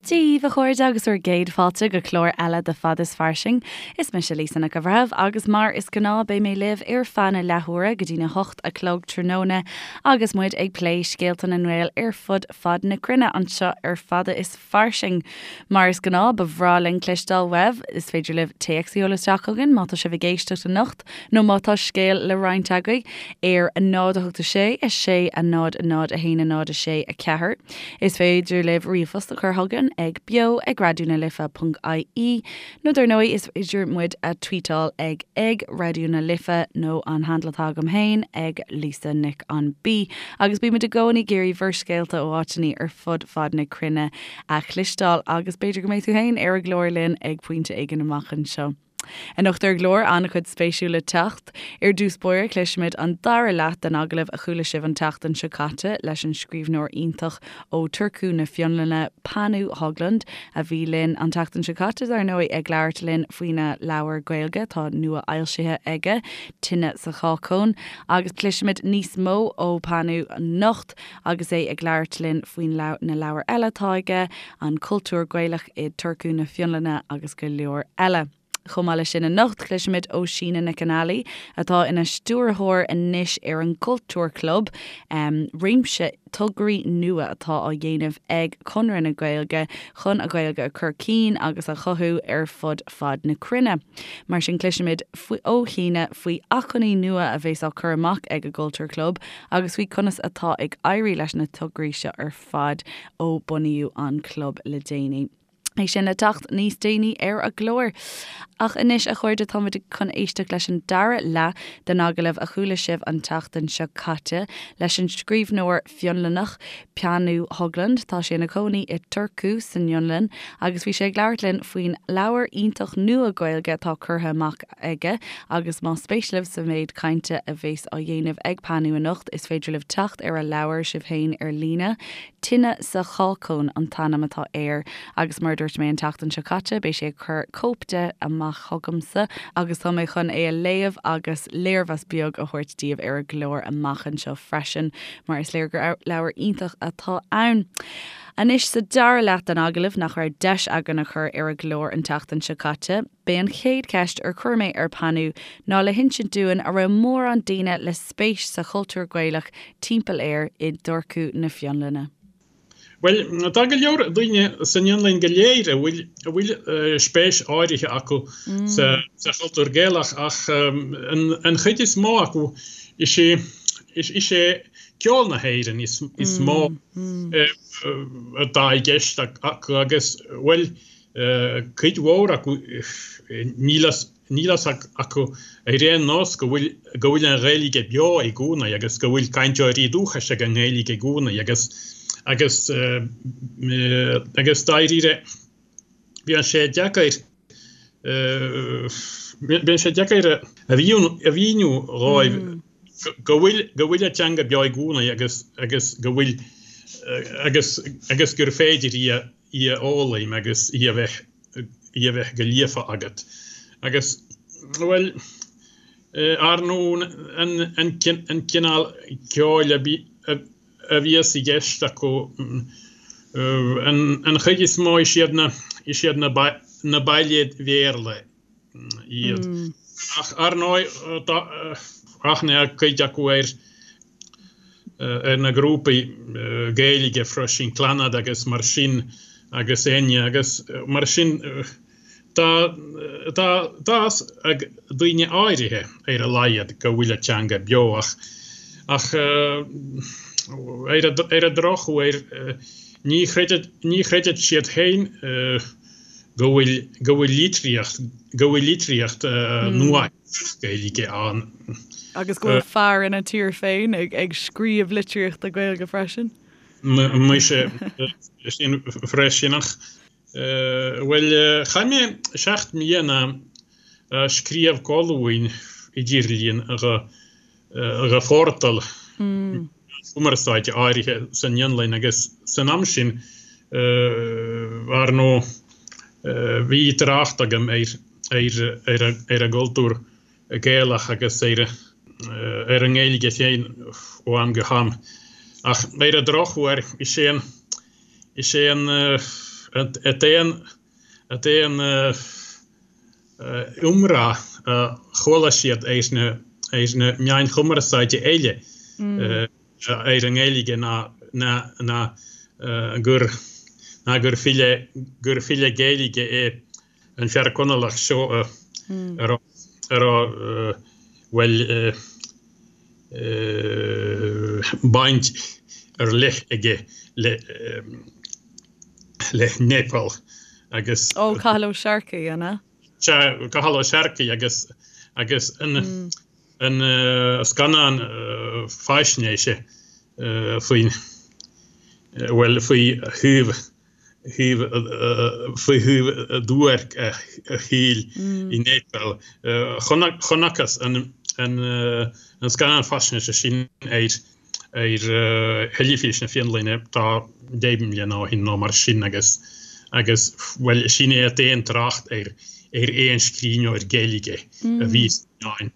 Dia dhaoibh, a chairde, agus bhur gcéad fáilte go clár eile de Fada is Fairsing. Is mise Lisa Nic an Bhreithimh agus mar is gnáth beidh mé libh ar feadh na leathuaire go dtína hocht a chlog tráthnóna agus muid ag plé scéalta na nGael ar fud fad na cruinne anseo ar Fada is Fairsing. Mar is gnáth ba bhreá linn cloisteáil uaibh, is féidir libh téacs a sheoladh isteach chugainn má tá sibh ag éisteacht anocht nó má tá scéal le roinnt agaibh ar 0 8 6 6 0 0 1 0 6 4. Is féidir libh ríomhphost a chur chugainn ag beo ag raidió na life ponc ie nó dar ndóigh is féidir muid a tweetáil ag ag Raidió na Life nó an handle atá agam féin ag Lisa Nic an B. Agus bímid i gcónaí ag iarraidh bhur scéalta ó áiteanna ar fud fad na cruinne a chloisteáil agus b'fhéidir go mbeidh tú féin ar an gclár linn ag pointe éigin amach anseo. Anocht ar an gclár, an-chuid spéisiúil le teacht. Ar dtús báire, cloisfimid an dara leath den agallamh a chuala sibh an tseachtain seo caite leis an scríbhneoir iontach ó Turku na Fionlainne, Panu Höglund, a bhí linn an tseachtain seo caite, dar ndóigh, ag labhairt linn faoina leabhar Gaeilge atá nua-fhoilsithe aige, Tine sa Chácóin. Agus cloisfimid níos mó ó Panu anocht agus é ag labhairt linn faoin na leabhair eile atá aige, an cultúr Gaelach i Turku na Fionlainne agus go leor eile. Chomh maith leis sin anocht, cloisfimid ó Síne Nic an Ailí, atá ina stiúrthóir anois ar an gCultúr Club, réimse tograí nua atá á dhéanamh ag Conradh na Gaeilge chun an Ghaeilge a chur cinn agus a chothú ar fud fad na cruinne. Mar sin cloisfimid ó Shíne faoi acmhainní nua a bheas á cur amach ag an gCultúr Club agus faoi conas atá ag éirí leis na tograí seo ar fad ó bunaíodh an club le déanaí. É sin le teacht níos déanaí ar an gclár. Ach anois, a chairde, táimid chun éisteacht leis an dara leath den agallamh a chuala sibh an tseachtain seo caite leis an scríbhneoir Fionlannach, Panu Höglund. Tá sé ina chónaí i Turku san Fhionlainn agus bhí sé ag labhairt linn faoin leabhar iontach nua Gaeilge atá curtha amach aige agus más spéis libh sa mhéid cainte a bheas á dhéanamh ag Panu anocht is féidir libh teacht ar a leabhar sibh féin ar líne. Tine sa Chácóin an t-ainm atá air agus mar a dúirt mé an tseachtain seo caite beidh sé ag cur cóip de amach chugamsa agus tá mé chun é a léamh agus léirmheas beag a thabhairt daoibh ar an gclár amach anseo freisin mar is léir gur leabhar iontach atá ann. Anois sa dara leath den agallamh nach raibh deis againn a chur ar an gclár an tseachtain seo caite, B'é an chéad cheist ar chuir mé ar Panu ná le hinsint dúinn a raibh mórán daoine le spéis sa chultúr Gaelach timpeall air i dTurku na Fionlainne. Bhuel, tá go leor daoine san Fhionlainn go léir a bhfuil a bhfuil spéis áirithe acu sa sa chultúr Gaelach ach an chuid is mó acu is é is é ceol na hÉireann is is mó atá i gceist acu agus bhuel Cuid mhór acu, níl a fhios acu ar aon nós go bhfuil go bhfuil an Ghaeilge beo i gcónaí agus go bhfuil cainteoirí dúchais ag an nGaeilge i gcónaí agus agus agus dáiríre bíonn sé deacair bíonn sé deacair a mhíniú dhóibh go bhfuil go bhfuil an teanga beo i gcónaí agus agus go bhfuil agus agus gur féidir í a í a fhoghlaim agus í a bheith, í a bheith go líofa agat. Agus, bhuel, ar ndóigh, an, an, an cineál ceoil a bhí, a bhíos i gceist acu, an, an chuid is mó is iad na, is iad na, na bailéid Bhéarla iad. Ach ar ndóigh, tá aithne ag cuid acu ar ar na grúpaí Gaeilge freisin, Clannad agus mar sin agus Enya agus mar sin tá tá tá fhios ag daoine áirithe ar a laghad go bhfuil an teanga beo ach ach ar ar an drochuair ní chreideann ní chreideann siad féin go bhfuil go bhfuil litríocht go bhfuil litríocht nua Gaeilge ann. Agus go bhfuil fear ina tír féin ag ag scríobh litríochta Gaeilge freisin. Muise sin freisin ach bhuel chaith mé 7 mbliana ag scríobh colúin idirlín do do phortal cumarsáide áirithe san Fhionlainn agus san am sin ar ndóigh bhí trácht agam ar ar an gcultúr Gaelach agus ar ar an nGaeilge féin ó am go ham. Ach ar an drochuair is é an is é an. An t-aon an t-aon iomrá a chuala siad ar na ar na meáin chumarsáide eile ar an nGaeilge ná ná ná gur ná gur file gur file Gaeilge é an fear Conallach seo a raibh a raibh bhuel baint ar leith aige le le Neipeal agus. Ó, Cathal Ó Searcaigh, an ea? Sea, Cathal Ó Searcaigh agus agus an an scannán faisnéise faoin bhuel faoi thaobh thaobh faoi thaobh duairc a shaoil i Neipeal. Chonacthas an an scannán faisnéise sin ar ar theilifís na Fionlainne tá 10 mbliana ó shin nó mar sin agus agus bhuel sin é an t-aon trácht ar ar aon scríbhneoir Gaeilge a bhí sna meáin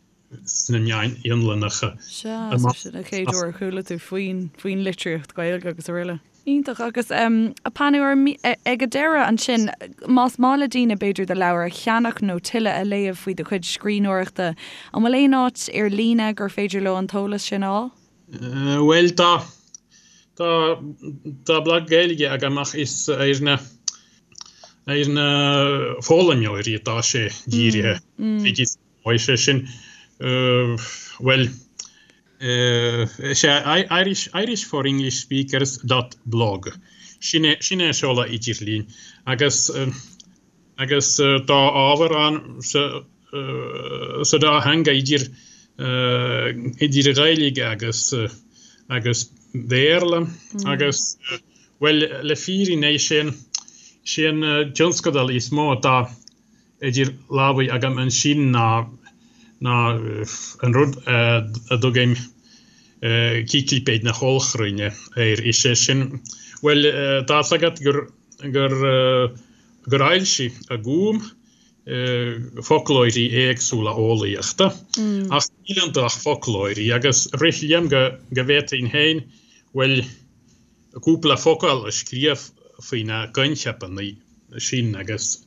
sna meáin Fhionlannacha. Sea, so sin an chéad uair a chuala tú faoin faoin litríocht Ghaeilge agus araile. Iontach. Agus a Panu, ag an deireadh ansin, más maith le daoine b'fhéidir do leabhar a cheannach nó tuilleadh a léamh faoi do chuid scríbhneoireachta, an bhfuil aon áit ar líne gur féidir leo an t-eolas sin a fháil? Bhuel, tá, tá, tá blag Gaeilge agam ach is ar na, ar na foghlaimeoirí atá sé dírithe. Is é sin, bhuel, is é Irish, Irish for English Speakers dot blog. Sin é, sin é an seoladh idirlín. Agus, agus tá ábhar ann sa, sa dá theanga idir, idir Ghaeilge agus, agus Béarla. Agus, bhuel, le fírinne, is é an, is é an tionscadal is mó atá idir lámhaí agam ansin ná ná an rud a dtugaim Ciclipéid na hOllchruinne air. Is é sin, bhuel, tá's agat gur gur gur fhoilsigh an Gúm foclóirí éagsúla eolaíochta, ach níl iontu ach foclóirí, agus rith liom go go bhféadfainn féin, bhuel, cúpla focal a scríobh faoi na coincheapanna sin agus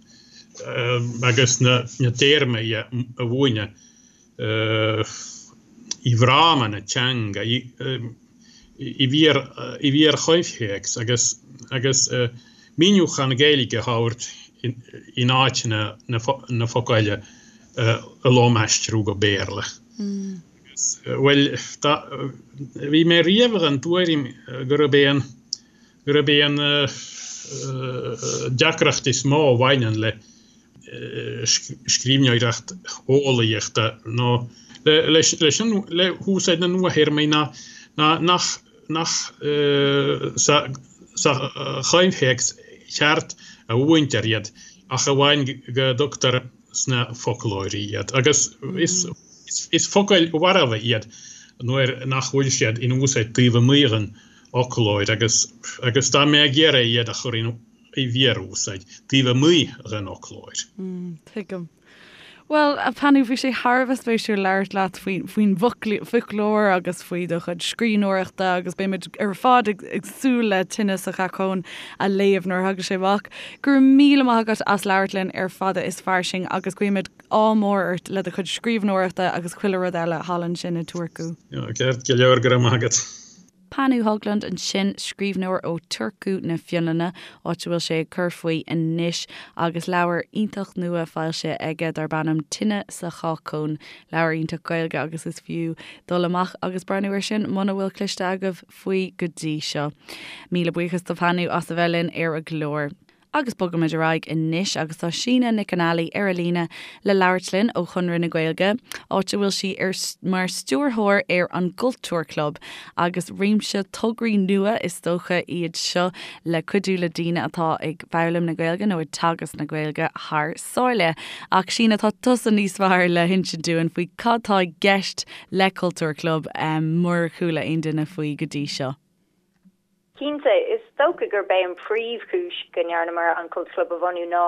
agus na téarmaí a mhúineadh i bhfráma na teanga, i bhfíor-choimhthéacs agus agus míniúchán Gaeilge a thabhairt in áit na focail a lomaistriú go Béarla. Bhuel, bhí mé riamh den tuairim gurb é an, gurb é an deacracht is mó a bhaineann le scríbhneoireacht eolaíochta nó leis an, le húsáid na nuathéarmaí ná nach, nach sa choimhthéacs cheart a mhúintear iad ach amháin go dtugtar sna foclóirí iad, agus is focail mharbha iad nuair nach bhfuil siad in úsáid taobh amuigh den fhoclóir, agus agus tá mé ag iarraidh iad a chur i bhfíor-úsáid taobh amuigh den fhoclóir. Tuigim. Bhuel, a Panu, bhí sé thar a bheith spéisiúil labhairt leat faoin bhfoclóir agus faoi do chuid scríbhneoireachta agus beimid ar fad ag súil le Tine sa Chácóin a léamh nuair a thagann sé amach. Go raibh míle maith agat as labhairt linn ar Fada is Fairsing agus guímid ádh mór ort le do chuid scríbhneoireachta agus chuile rud eile thall ansin i Turku. Ceart go leor, go raibh maith agat. Panu Höglund ansin, scríbhneoir ó Turku na Fionlainne, áit a bhfuil sé ag cur faoi anois, agus leabhar iontach nua foilsithe aige darb ainm Tine sa Chácóin. Leabhar iontach Gaeilge agus is fiú dul amach agus breathnú air sin muna bhfuil cloiste agaibh. faoi go dtí seo. Míle buíochas do Phanu as a bheith linn ar an gclár. Agus bogaimid ar aghaidh anois agus tá Síne Nic an Ailí ar an líne le labhairt linn ó Chonradh na Gaeilge, áit a bhfuil sí ar mar stiúrthóir ar an gCultúr Club agus réimse tograí nua is dócha iad seo le cuidiú le daoine atá ag foghlaim na Gaeilge nó ag teagasc na Gaeilge thar sáile. Ach Síne, tá tusa níos fearr le hinsint dúinn faoi cad tá i gceist le Cultúr Club murar chuala aon duine faoi go dtí seo. Cinnte, is dócha gurb é an príomhchúis go ndearnamar an Cultúr Club a bhunú ná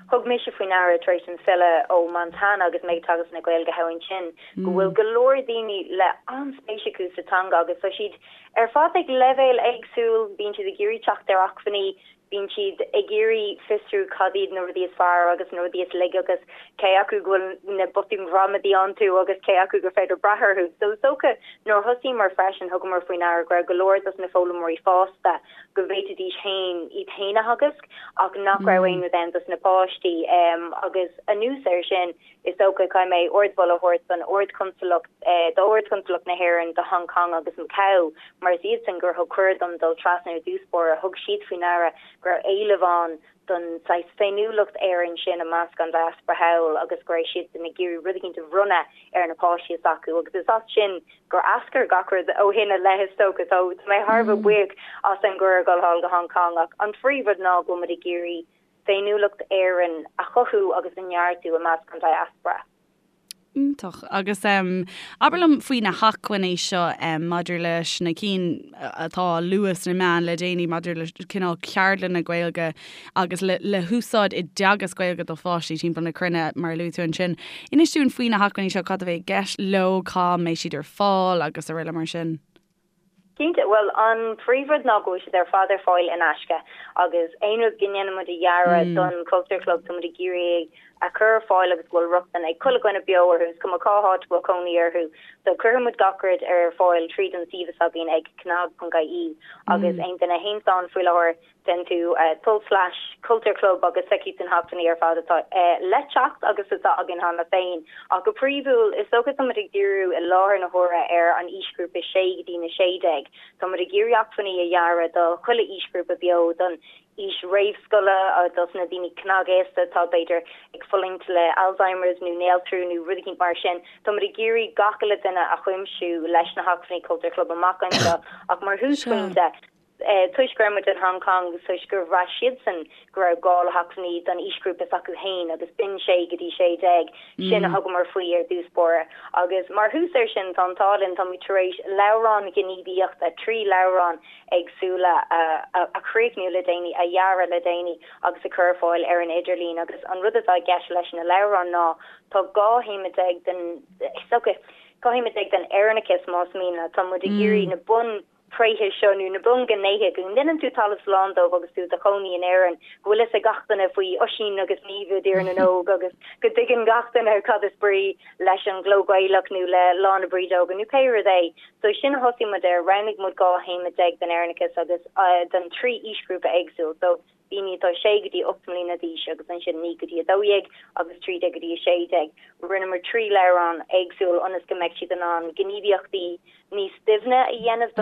thug mise faoi ndeara tar éis dom filleadh ó Montana agus mé ag teagasc na Gaeilge thall ansin go bhfuil go leor daoine le an-spéis acu sa teanga agus tá siad ar fad ag leibhéal éagsúil, bíonn siad ag iarraidh teacht ar acmhainní. Bíonn siad ag iarraidh fiosrú cad iad na rudaí is fearr agus na rudaí is laige agus cé acu go bhfuil na botúin ghramadaí iontu agus cé acu gur féidir brath orthu. So is dócha nuair a thosaíomar freisin thugamar faoi ndeara go raibh go leor dos na foghlaimeoirí fásta go bhféadfaidís féin iad féin a theagasc ach nach raibh aon rud ann dos na páistí. Agus anuas air sin Is dócha, caithfidh mé ardmholadh a thabhairt don Ard-Chonsalacht, d'Ard-Chonsalacht na hÉireann do Hong Kong agus Macau, mar is iadsan gur thug cuireadh dom dul trasna ar dtús báire. Thug siad faoi ndeara go raibh éileamh ann don saghas féiniúlacht Éireann sin i measc an diaspora thall agus go raibh siadsan ag iarraidh rud eicínt a bhronnadh ar na páistí s'acu agus is as sin gur eascair gach rud ó shin i leith is dócha. So tá mé thar a bheith buíoch as an gcuireadh dul thall go Hong Kong ach an phríomhrud ná go bhfuil muid ag iarraidh féiniúlacht Éireann a chothú agus a neartú i measc an diaspora. Iontach. Agus abair liom faoi na hacmhainní seo maidir leis na cinn atá á lua sna meáin le déanaí maidir le cineál ceardlanna Gaeilge agus le le húsáid i dteagasc Gaeilge do pháistí timpeall na cruinne mar a luaigh tú ansin. Inis dúinn faoi na hacmhainní seo, cad a bheidh i gceist leo, cá mbeidh siad ar fáil agus araile mar sin. Cinnte, bhuel an príomhrud ná go bhfuil siad ar fad ar fáil in aisce agus aon rud go ndéanann muid a dhearadh don Culture Club tá muid ag iarraidh é a chur ar fáil agus go bhfuil rochtain ag chuile dhuine beo orthu, is cuma cá háit a bhfuil cónaí orthu. So cuirfidh muid gach rud ar fáil tríd an suíomh s'againn ag cnag.ie agus aon duine a théanns ann faoi láthair Déan tú tulslais Culture Club agus feicfidh tú na hacmhainní ar fad atá le teacht agus atá againn cheana féin. Ach go príomhúil, is dócha tá muid ag díriú i láthair na huaire ar an aoisghrúpa 6 go dtí na 16. Tá muid ag iarraidh acmhainní a dhearadh do chuile aoisghrúpa beo, don aois réamhscoile, dos na daoine cnagaosta atá b'fhéidir ag fulaingt le Alzheimer's nó néaltrú nó rud eicínt mar sin. Tá muid ag iarraidh gach uile duine a chuimsiú leis na hacmhainní Culture Club amach anseo ach mar thúsphointe, Toisc go raibh muid in Hong Kong agus toisc gur bhraith siadsan go raibh gá le hacmhainní don aoisghrúpa s'acu féin agus b'in 6 go dtí 16, sin a thugamar faoi ar dtús báire. Agus mar thús air sin, tá an t-ádh linn, táimid tar éis leabhrán gníomhaíochta, 3 leabhrán éagsúla a chríochnú le déanaí, a dhearadh le déanaí agus a chur ar fáil ar an idirlíon. Agus an rud atá i gceist leis na leabhráin ná tá 12 théama den, is dócha, 12 théama den Éireannachas más mian leat, tá muid ag iarraidh na bun. tréithe seo nó na bunghnéithe go ndéanann tú talamh slán dóibh agus tú i do chónaí in Éirinn, go bhfuil fhios ag gach duine faoi Oisín agus Niamh i dTír na nÓg agus go dtuigeann gach duine cad is brí leis an gcló Gaelach nó le Lá na Brídeoige nó pé rud é. So sin a thosaigh muid air, roghnaigh muid 12 théama den Éireannachas agus don 3 aoisghrúpa éagsúil. So daoine atá 6 go dtí 8 mbliana d'aois agus ansin 9 go dtí 12 agus 13 go dtí 16. Rinneamar 3 leabhrán éagsúil ionas go mbeidh siad in ann gníomhaíochtaí níos doimhne a dhéanamh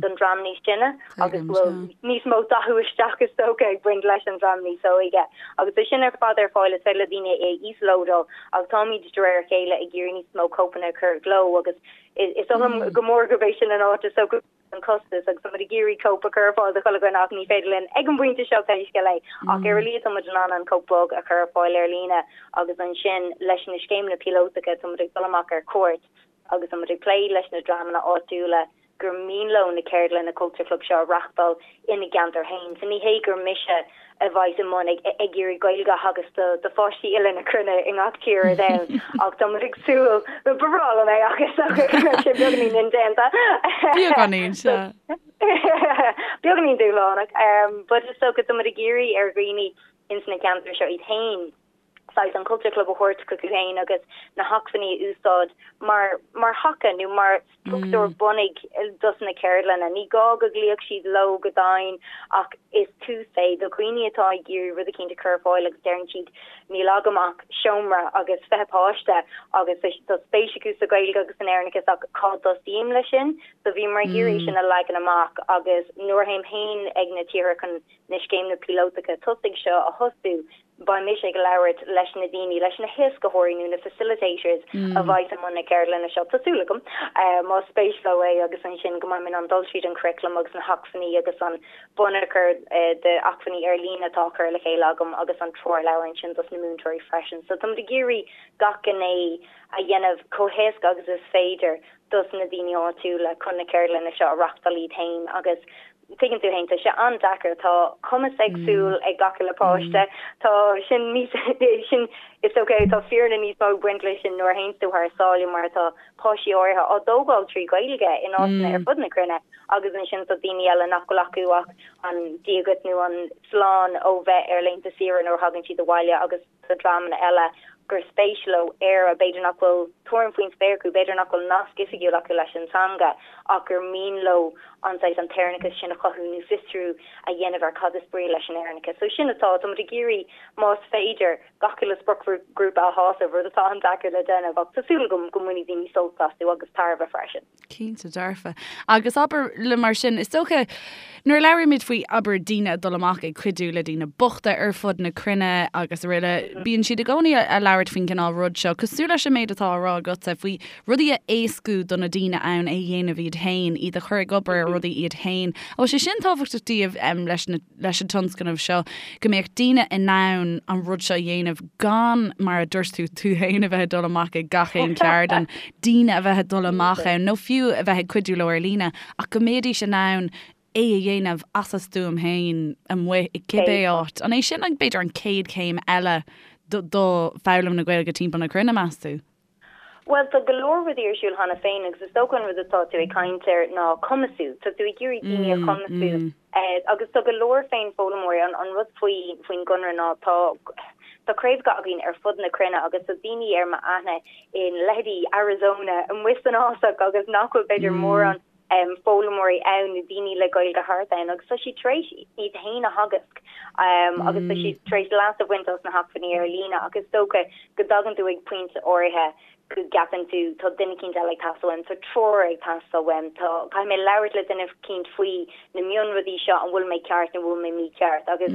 don dream níos sine agus go bhfuil níos mó dathú isteach is dócha ag baint leis an dream níos óige. Agus tá sin ar fad ar fáil, is féidir le daoine é a íoslódáil ach táimid de réir a chéile ag iarraidh níos mó cóipeanna a chur i gcló agus is oth liom go mór gurb é sin an áit is dócha an costas agus táimid ag iarraidh cóip a chur ar fáil do chuile dhuine ach ní féidir linn ag an bpointe seo pé scéal é ach ar a laghad táimid in ann an cóip bog a chur ar fáil ar líne agus ansin leis na scéimeanna píolótacha táimid ag dul amach ar cuairt agus tá muid ag plé leis na dreamanna áitiúla gur mian leo na ceardlanna Culture Club seo a reachtáil ina gceantar féin. So ní hé gur mise a bheas i mbun ag ag iarraidh Gaeilge a theagasc do do pháistí uile na cruinne i ngach tír ar domhan ach tá muid ag súil, ba bhreá liom é ach is dócha go mbeadh sé beagáinín indéanta. Beagáinín, sea. Beagáinín dúshlánach. But is dócha tá muid ag iarraidh ar dhaoine ins na ceantair seo iad féin saghas an Culture Club a thabhairt chucu féin agus na hacmhainní a úsáid mar mar thaca nó mar struchtúr bunaidh dos na ceardlanna. Ní gá go gcloífeadh siad leo go domhain ach is tús é do dhaoine atá ag iarraidh rud eicínt a chur ar fáil agus deireann siad níl agam ach seomra agus 20 páiste agus tá spéis acu sa Ghaeilge agus san Éireannachas ach cá dtosaím leis sin? So bhíomar ag iarraidh sin a leagan amach agus nuair a théim féin ag na tíortha chun na scéimeanna píolótacha tosaigh seo a thosú, Beidh mise ag labhairt leis na daoine, leis na héascaitheoirí nó na facilitators a bheidh i mbun na ceardlainne seo, tá súil agam, más spéis leo é agus ansin go mbeidh mé in ann dul tríd an curriculum agus na hacmhainní agus an bunachar d'acmhainní ar líne atá á chur le chéile agam agus an treoirleabhar ansin dos na múinteoirí freisin. So táimid ag iarraidh gach gné a dhéanamh chomh héasca agus is féidir dos na daoine áitiúla chun na ceardlanna seo a reachtáil iad féin agus Tuigeann tú fhéin, tá sé an-deacair, tá cumas éagsúil ag gach uile páiste, tá sin níos, sin, is dócha, tá fírinne níos mó ag baint leis sin nuair a théanns tú thar sáile mar tá páistí áirithe á dtógáil trí Ghaeilge in áiteanna ar fud na cruinne agus ansin tá daoine eile nach bhfuil acu ach. An Dia dhuit nó an slán ó bheith ar laethanta saoire nuair a thagann siad abhaile agus do dhreamanna eile gur spéis leo Éire, b'fhéidir nach bhfuil tuairim faoin spéir acu, b'fhéidir nach bhfuil nasc oifigiúil acu leis an teanga ach gur mian leo an saghas an tÉireannachas sin a chothú nó fiosrú a dhéanamh ar cad is brí leis an Éireannachas. So sin atá, tá muid ag iarraidh, más féidir, gach uile spriocghrúpa a shásamh, rud atá an-deacair le déanamh ach tá súil agam go mbainfidh daoine sult astu agus tairbhe freisin. Cinnte dearfa. Agus abair le mar sin, is dócha, nuair a labhraímid faoi, abair, daoine ag dul amach ag cuidiú le daoine bochta ar fud na cruinne agus araile, bíonn siad i gcónaí a labhairt faoin gcineál rud seo, cosúil leis an méid atá á rá agatsa faoi rudaí a éascú do na daoine ann é a dhéanamh iad féin, iad a chur ag obair ar rudaí iad féin. An bhfuil sé sin tábhachtach daoibh leis na. leis an tionscnamh seo, go mbeadh daoine in ann an rud seo a dhéanamh gan, mar a dúirt tú, tú féin a bheith ag dul amach ag gach aon cheardlann, daoine a bheith ag dul amach ann nó fiú a bheith ag cuidiú leo ar líne, ach go mbeidís in ann é a dhéanamh as a stuaim féin amuigh i cibé áit. An é sin, b'fhéidir, an chéad chéim eile do foghlaim na Gaeilge timpeall na cruinne, meas tú? Bhuel, tá go leor rudaí ar siúl cheana féin agus is dócha an rud atá tú ag caint air ná cumasú. Tá tú ag iarraidh daoine a chumasú agus tá go leor féin-fhoghlaimeoirí. An rud faoi faoin gConradh ná tá tá craobhacha againn ar fud na cruinne agus tá daoine ar m'aithne in leithéidí Arizona amuigh san fhásach agus nach bhfuil b'fhéidir mórán foghlaimeoirí ann nó daoine le Gaeilge thart ann agus tá siad tar éis iad féin a theagasc agus tá siad tar éis leas a bhaint as na hacmhainní ar líne ach is dócha go dtagann tú ag pointe áirithe go gceapann tú tá duine eicínt eile ag teastáil uaim, tá treoir ag teastáil uaim, tá, caithfidh mé labhairt le duine eicínt faoi na mionrudaí seo, an bhfuil mé ceart nó bhfuil mé mícheart agus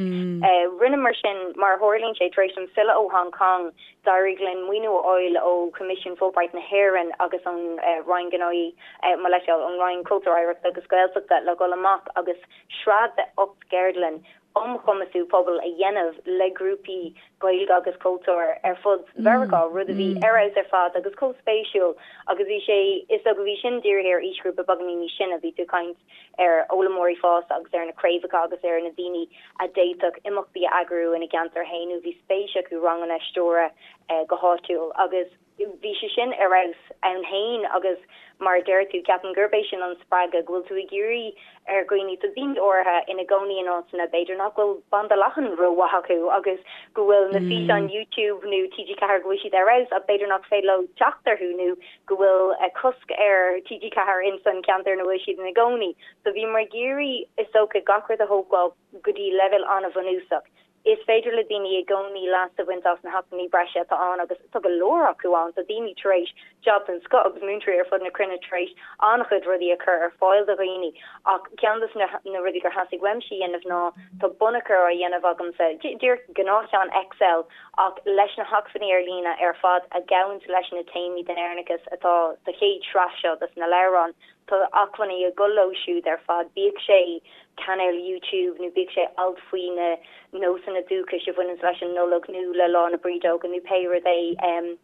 rinneamar sin mar a tharlaíonn sé tar éis dom filleadh ó Hong Kong D'éirigh linn maoiniú a fháil ó Choimisiún Fulbright na hÉireann agus ón Roinn Gnóthaí, mo leithscéal, ón Roinn Cultúir, Oidhreachta agus Gaeltachta le dhul amach agus sraith de 8 gceardlann um chumasú pobail a dhéanamh le grúpaí Gaeilge agus cultúir ar fud Mheiriceá, rud a bhí ar fheabhas ar fad agus chomh spéisiúil agus bhí sé, is dócha bhí sin dírithe ar aoisghrúpa beagáinín níos sine, bhí tú ag caint ar fhoghlaimeoirí fásta agus ar na craobhacha agus ar na daoine a d'fhéadfadh imeachtaí a eagrú ina gceantar féin nó bhí spéis acu ranganna a stiúradh go háitiúil agus bhí sé sin ar fheabhas ann féin agus mar a deir tú, ceapaim gurb é sin an spreagadh, go bhfuil tú ag iarraidh ar dhaoine, tá daoine áirithe ina gcónaí in áiteanna b'fhéidir nach bhfuil banda leathan rómhaith acu agus go bhfuil na físeáin YouTube nó TG4 go bhfuil siad ar fheabhas ach b'fhéidir nach féidir leo teacht orthu nó go bhfuil cosc ar TG4 ins an ceantar ina bhfuil siad ina gcónaí. So bhíomar ag iarraidh, is dócha, gach rud a thógáil go dtí leibhéal an-bhunúsach. Is féidir le daoine i gcónaí leas a bhaint as na hacmhainní breise atá ann agus tá go leor acu ann. Tá daoine tar éis jab den scoth agus múinteoirí ar fud na cruinne tar éis an-chuid rudaí a chur ar fáil do dhaoine ach ceann de na rudaí gur theastaigh uaimse a dhéanamh ná tá bunachar á dhéanamh agamsa, díreach gnáthcheann Excel ach leis na hacmhainní ar líne ar fad a ghabhanns leis na téamaí den Éireannachas atá sa chéad sraith seo dos na leabhráin. Tá acmhainní ag dul leo siúd ar fad, bíodh sé cainéal YouTube nó bíodh sé alt faoi na nósanna dúchais a bhaineanns leis an Nollaig nó le Lá na Brídeoige nó pé rud é.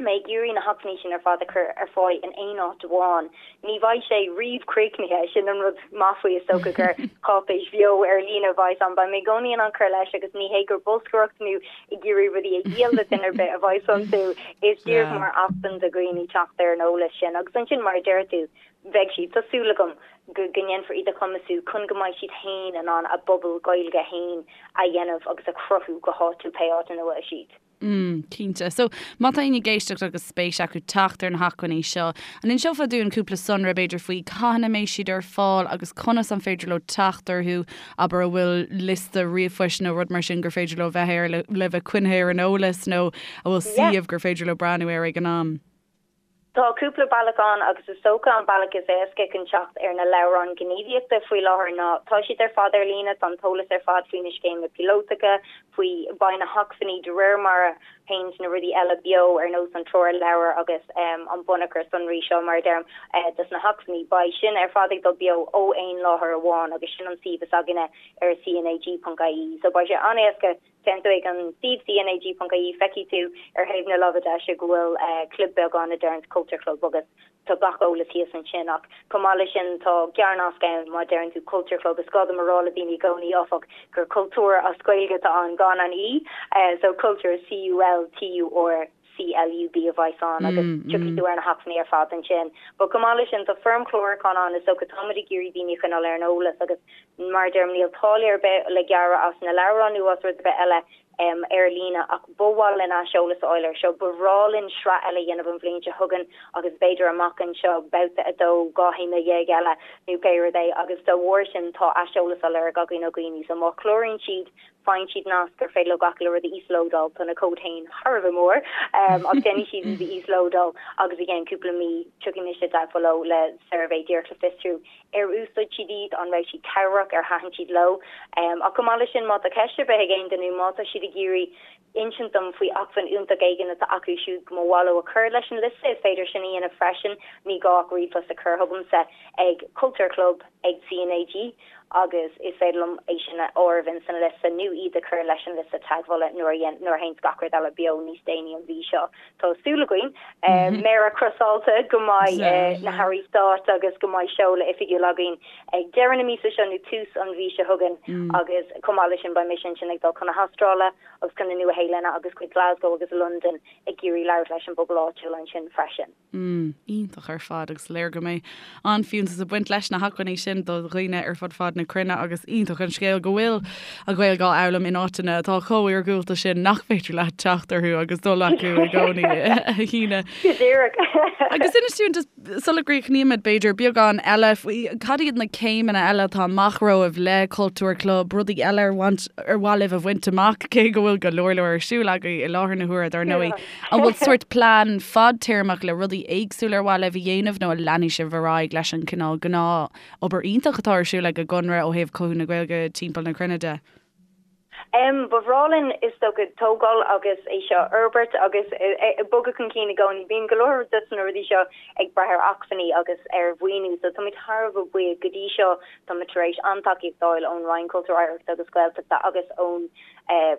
Mé ag iarraidh na hacmhainní sin ar fad a chur ar fáil in aon áit amháin. Ní bheidh sé riamh críochnaithe, sin an rud maith faoi is dócha gur cáipéis bheo ar líne a bheidh ann. Beidh mé i gcónaí in ann cur leis agus ní hé gur bolscaireacht nó ag iarraidh rudaí a dhíol le duine ar bith a bheidh iontu, is díreach mar acmhainn do dhaoine teacht ar an eolas sin. Agus ansin mar a deir tú, beidh siad, tá súil agam, go ndéanfar iad a chumasú chun go mbeidh siad féin in ann a bpobal Gaeilge féin a dhéanamh agus a chruthú go háitiúil pé áit ina bhfuil siad. Mm, cinnte. So, má tá éinne ag éisteacht agus spéis acu teacht ar na hacmhainní seo, an inseofá dúinn cúpla sonra b'fhéidir faoi cathain a mbeidh siad ar fáil agus conas an féidir leo teacht orthu, abair an bhfuil liosta ríomhphoist nó rud mar sin gur féidir leo bheith air le, le bheith coinnithe ar an eolas nó an bhfuil suíomh gur féidir leo breathnú air ag an am? Tá cúpla bealach ann agus is dócha an bealach is éasca chun teacht ar na leabhráin ghníomhaíochta faoi láthair ná tá siad ar fad ar líne, tá an t-eolas ar fad faoi na scéimeanna píolótacha, faoi, beidh na hacmhainní de réir mar a théanns na rudaí eile beo ar nós an treoirleabhar agus an bunachar sonraí seo mar a deirim dos na hacmhainní, beidh sin ar fad ag dul beo ó aon láthair amháin agus sin an suíomh is againne ar cnag.ie so beidh sé an-éasca Téann tú ag an suíomh cnag.ie feicfidh tú ar thaobh na láimhe deise go bhfuil club beag ann a deireanns Culture Club agus tá gach eolas thíos ansin ach chomh maith leis sin tá gearrnasc ann má deireann tú Culture Club. Is gá dom a rá le daoine i gcónaí áfach gur cultúr as Gaeilge atá ann gan an E so culture C-U-L-T-U-R. CLUB a bheas ann agus tiocfaidh tú ar na hacmhainní ar fad ansin. But chomh maith leis sin tá foirm chlárúcháin ann is dócha táimid ag iarraidh daoine a choinneáil ar an eolas agus mar a deirim níl táille ar bith le gearradh as na leabhráin nó as rud ar bith eile ar líne ach ba mhaith linn aiseolas a fháil air seo. Ba bhreá linn sraith eile a dhéanamh an bhliain seo chugainn agus b'fhéidir amach anseo babhta 2, 12 théama eile nó pé rud é agus dá bharr sin tá aiseolas á lorg againn ó dhaoine so má chláraíonn siad faigheann siad nasc gur féidir leo gach uile rud a íoslódáil, tá na comhaid féin thar a bheith mór ach déanfaidh siad iad a íoslódáil agus i gceann cúpla mí tiocfaidh mise i dteagmháil leo le suirbhé díreach le fiosrú ar úsáid siad iad, an raibh siad cabhrach, ar thaitin siad leo. Ach chomh maith leis sin, má tá ceist ar bith ag aon duine nó má tá siad ag iarraidh insint dom faoi acmhainn iontach éigin atá acu siúd go mba mhaith leo a chur leis an liosta, is féidir sin a dhéanamh freisin, ní gá ach ríomhphost a chur chugamsa ag cultúrclub ag CNAG agus is féidir liom é sin a áireamh ins an liosta nó iad a chur leis an liosta teagmhála nuair a nuair a théanns gach rud eile beo níos déanaí an mhí seo. Tá súil againn, méara crosáilte, go mbeidh na hairí stáit agus go mbeidh seoladh oifigiúil againn ag deireadh na míosa seo nó tús an mhí seo chugainn agus chomh maith leis sin beidh mise ansin ag dul chun na hAstráile agus chun na Nua-Shéalainne agus chuig Glasgow agus Londain ag iarraidh labhairt leis an bpobal áitiúil ansin freisin. Mm, iontach ar fad agus léir go mbeidh an-fhiúntas ag baint leis na hacmhainní sin do dhaoine ar fud fad na cruinne agus iontach an scéal go bhfuil an Ghaeilge á fhoghlaim in áiteanna atá chomh iargúlta sin nach féidir leat teacht orthu agus dul acu i gcónaí, a Shíne. Go díreach. Agus inis dúinn just sula gcríochnaímid b'fhéidir beagán eile faoi cad iad na céimeanna eile atá amach romhaibh le Cultúr Club, rudaí eile ar mhaith libh a bhaint amach cé go bhfuil go leor leor ar siúl agaibh i láthair na huaire dar ndóigh. An bhfuil sórt plean fadtéarmach le rudaí éagsúla ar mhaith libh a dhéanamh nó an leanfaidh sibh ar aghaidh leis an cineál gnáth-obair iontach atá ar siúl ag an gConradh ó thaobh cothú na Gaeilge timpeall na cruinne de? Ba bhreá linn is dócha tógáil agus é seo a fhorbairt agus bogadh chun cinn i gcónaí. Bíonn go leor de na rudaí seo ag brath ar acmhainní agus ar mhaoiniú so táimid thar a bheith buíoch go dtí seo táimid tar éis an-tacaíocht a fháil ón Roinn Cultúir, Oidhreachta agus Gaeltachta agus ón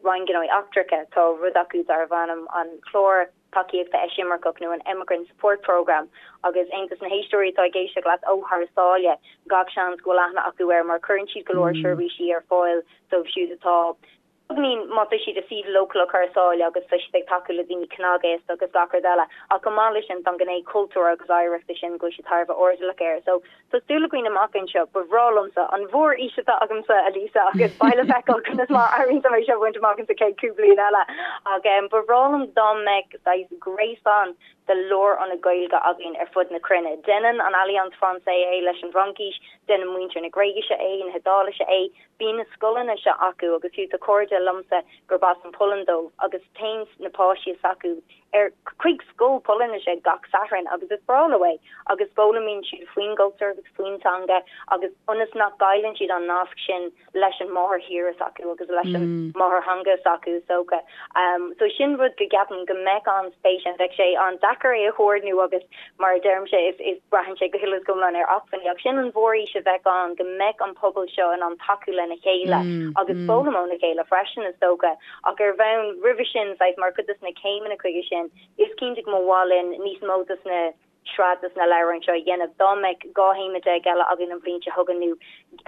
Roinn Gnóthaí Eachtracha, tá rud acu darbh ainm an Clár Tacaíochta Eisimirceach nó an Emigrant Support Programme agus aon dos na héisteoirí atá ag éisteacht leat ó thar sáile, gach seans go bhfuil aithne acu air mar cuireann siad go leor seirbhísí ar fáil dóibh siúd atá, beagáinín, má tá siad i suíomh leochaileach thar sáile agus tá siad ag tacú le daoine cnagaosta agus gach rud eile. Ach chomh maith leis sin, tá an ghné cultúir agus oidhreachta sin go bhfuil siad thar a bheith airdeallach air. So, Tá súil againn amach anseo. Ba bhreá liomsa an mhórfhís atá agamsa, a Lisa, agus beidh le feiceáil conas mar a éiríonn liom é seo a bhaint amach insa chéad chúpla bliain eile. Ach ba bhreá liom dá mbeadh saghas gréasán de lárionaid Gaeilge againn ar fud na cruinne. Déanann an Alliance Française é leis an bhFraincis, déanann muintir na Gréigise é, na hIodáilise é. Bíonn na scoileanna seo acu agus fiú tá cairde liomsa gurb as an Pholainn dóibh agus téann na páistí s'acu ar chuig scoil Polainnise gach Satharn agus is breá leo é agus foghlaimíonn siad faoin gcultúr agus faoin teanga agus ionas nach gcailleann siad an nasc sin leis an máthairthír s'acu agus leis an máthairtheanga s'acu is dócha. So sin rud go gceapaim go mbeadh an-spéis ann. Bheadh sé an-deacair é a chomhordnú agus mar a deirimse is is braitheann sé go huile is go hiomlán ar acmhainní ach sin an mhórfhís a bheadh ann go mbeadh an pobal seo in ann tacú lena chéile agus foghlaim óna chéile freisin is dócha. Ach ar bhonn roimhe sin, saghas mar chuid des na céimeanna chuige sin, is cinnte go mba mhaith linn níos mó des na sraith des na leabhráin seo a dhéanamh. Dá mbeadh 12 théama eile againn an bhliain seo chugainn nó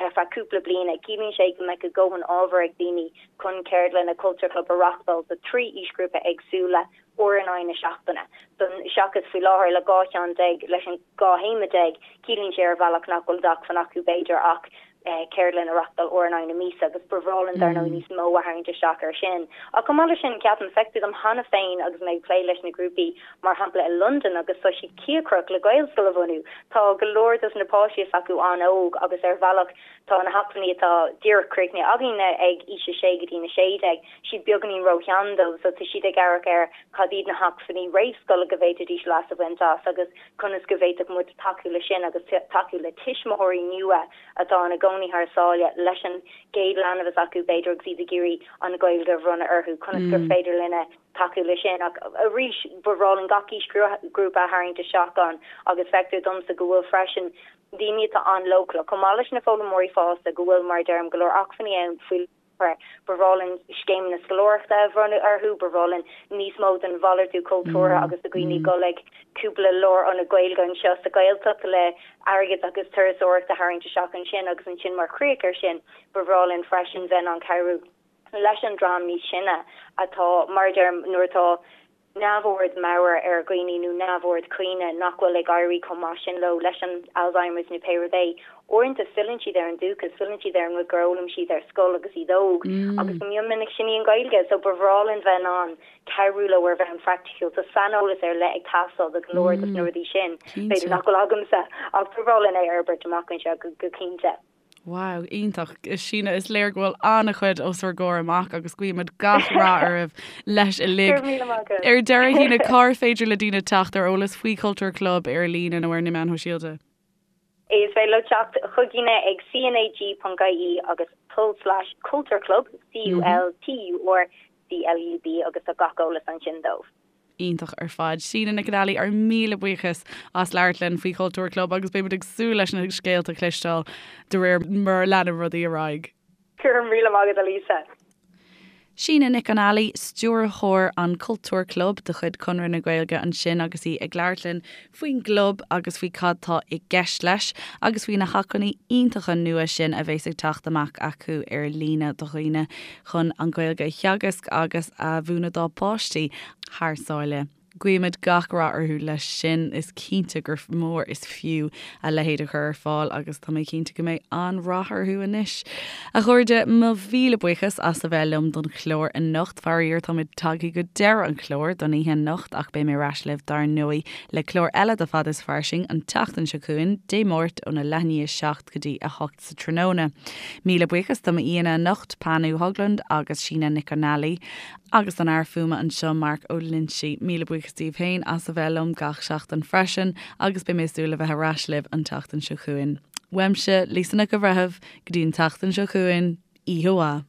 ar feadh cúpla bliana, ciallaíonn sé go mbeadh a dhóthain ábhair ag daoine chun ceardlanna Cultúr Club a reachtáil do 3 aoisghrúpa éagsúla uair in aghaidh na seachtaine. Don, seachas faoi láthair le 12 cheann leis an 12 théama, ciallaíonn sé ar bhealach nach bhfuil d'acmhainn acu b'fhéidir ach ceardlann a reachtáil uair in aghaidh na míosa agus ba bhreá linn dar ndóigh níos mó a tharraingt isteach air sin. Ach chomh maith leis sin, ceapaim, feictear dom cheana féin agus mé ag plé leis na grúpaí, mar shampla i Londain agus tá siad cíocrach le Gaelscoil a bhunú. Tá go leor dos na páistí s'acu an-óg agus ar bhealach tá na hacmhainní atá díreach críochnaithe againne ag aois a sé go dtí na 16, siad beagáinín róshean dóibh so tá siad ag amharc ar cad iad na hacmhainní réamhscoile go bhféadfaidís leas a bhaint as agus conas go bhféadfadh muid tacú leis sin agus tacú le tuismitheoirí nua atá ina gcónaí thar sáile leis an gcéad leanbh s'acu b'fhéidir agus iad ag iarraidh an Ghaeilge a bhronnadh orthu, conas gur féidir linne tacú leis sin. Ach arís, ba bhreá linn gach aoisghrúpa a tharraingt isteach ann agus feictear domsa go bhfuil freisin daoine atá an-leochaileach, chomh maith leis na foghlaimeoirí fásta, go bhfuil, mar a deirim, go leor acmhainní ann faoi. Ba bhreá linn scéimeanna scoláireachta a bhronnadh orthu, ba bhreá linn níos mó den mhalartú cultúrtha agus do dhaoine dul ag cúpla lárionad Gaeilge anseo sa Ghaeltacht le airgead agus turasóireacht a tharraingt isteach ansin agus ansin mar chríoch air sin ba bhreá linn freisin bheith in ann cabhrú leis an dream níos sine atá, mar a deirim, nuair atá. neamhord meabhair ar dhaoine nó neamhord cuimhne nach bhfuil ag éirí chomh maith sin leo leis an Alzheimer's nó pé rud é, uaireanta filleann siad ar an dúchas, filleann siad ar an rud gur fhoghlaim siad ar scoil agus iad óg agus go mion minic sin í an Ghaeilge. So ba bhreá linn bheith in ann cabhrú leo ar bhonn praiticiúil. Tá saineolas ar leith ag teastáil do go leor dos na rudaí sin, b'fhéidir nach bhfuil agamsa, ach ba bhreá linn é a fhorbairt amach anseo go cinnte. Wow, iontach. Síne, is léir go bhfuil an-chuid os bhur gcomhair amach agus guímid gach rath oraibh leis uilig. Go raibh míle maith agat. Ar deireadh, Shíne, cár féidir le daoine teacht ar eolas faoi Chultúr Club ar líne nó ar na meáin shóisialta? Is féidir leo teacht chugainne ag cnag.ie agus tulslais cultúrclub, C-U-L-T-U-R C-L-U-B, agus tá gach eolas ansin dóibh. Iontach ar fad. Síne Nic an Ailí, ár míle buíochas as labhairt linn faoi Chultúr Club agus beimid ag súil leis na scéalta a chloisteáil de réir mar a leanann rudaí ar aghaidh. Go raibh míle maith agat, a Lisa. Síne Nic an Ailí, Stiúrthóir an Cultúr Club de chuid Conradh na Gaeilge ansin agus í ag labhairt linn faoin gclub agus faoi cad tá i gceist leis agus faoi na hacmhainní iontacha nua sin a bheas ag teacht amach acu ar líne do dhaoine chun an Ghaeilge a theagasc agus a mhúineadh dá bpáistí thar sáile. Guímid gach rath orthu leis sin. Is cinnte gur mór is fiú a leithéid a chur ar fáil agus tá mé cinnte go mbeidh an-rath orthu anois. A chairde, mo mhíle buíochas as a bheith liom don chlár anocht. Faraor, táimid tagtha go deireadh an chláir don oíche anocht ach beidh mé ar ais libh dar ndóigh le clár eile de Fad is Fairsing an tseachtain seo chugainn, Dé Máirt óna leath i ndiaidh 7 go dtí 8 sa tráthnóna. Míle buíochas do m'aíonna anocht, Panu Höglund agus Síne Nic an Ailí, agus don fhear fuaime anseo, Mark Ó Loinsigh. Míle buíochas daoibh féin as a bheith liom gach seachtain freisin agus beidh mé ag súil le bheith ar ais libh an tseachtain seo chugainn. Uaimse, Lisa Nic an Bhreithimh, go dtí an tseachtain seo chugainn, oíche mhaith.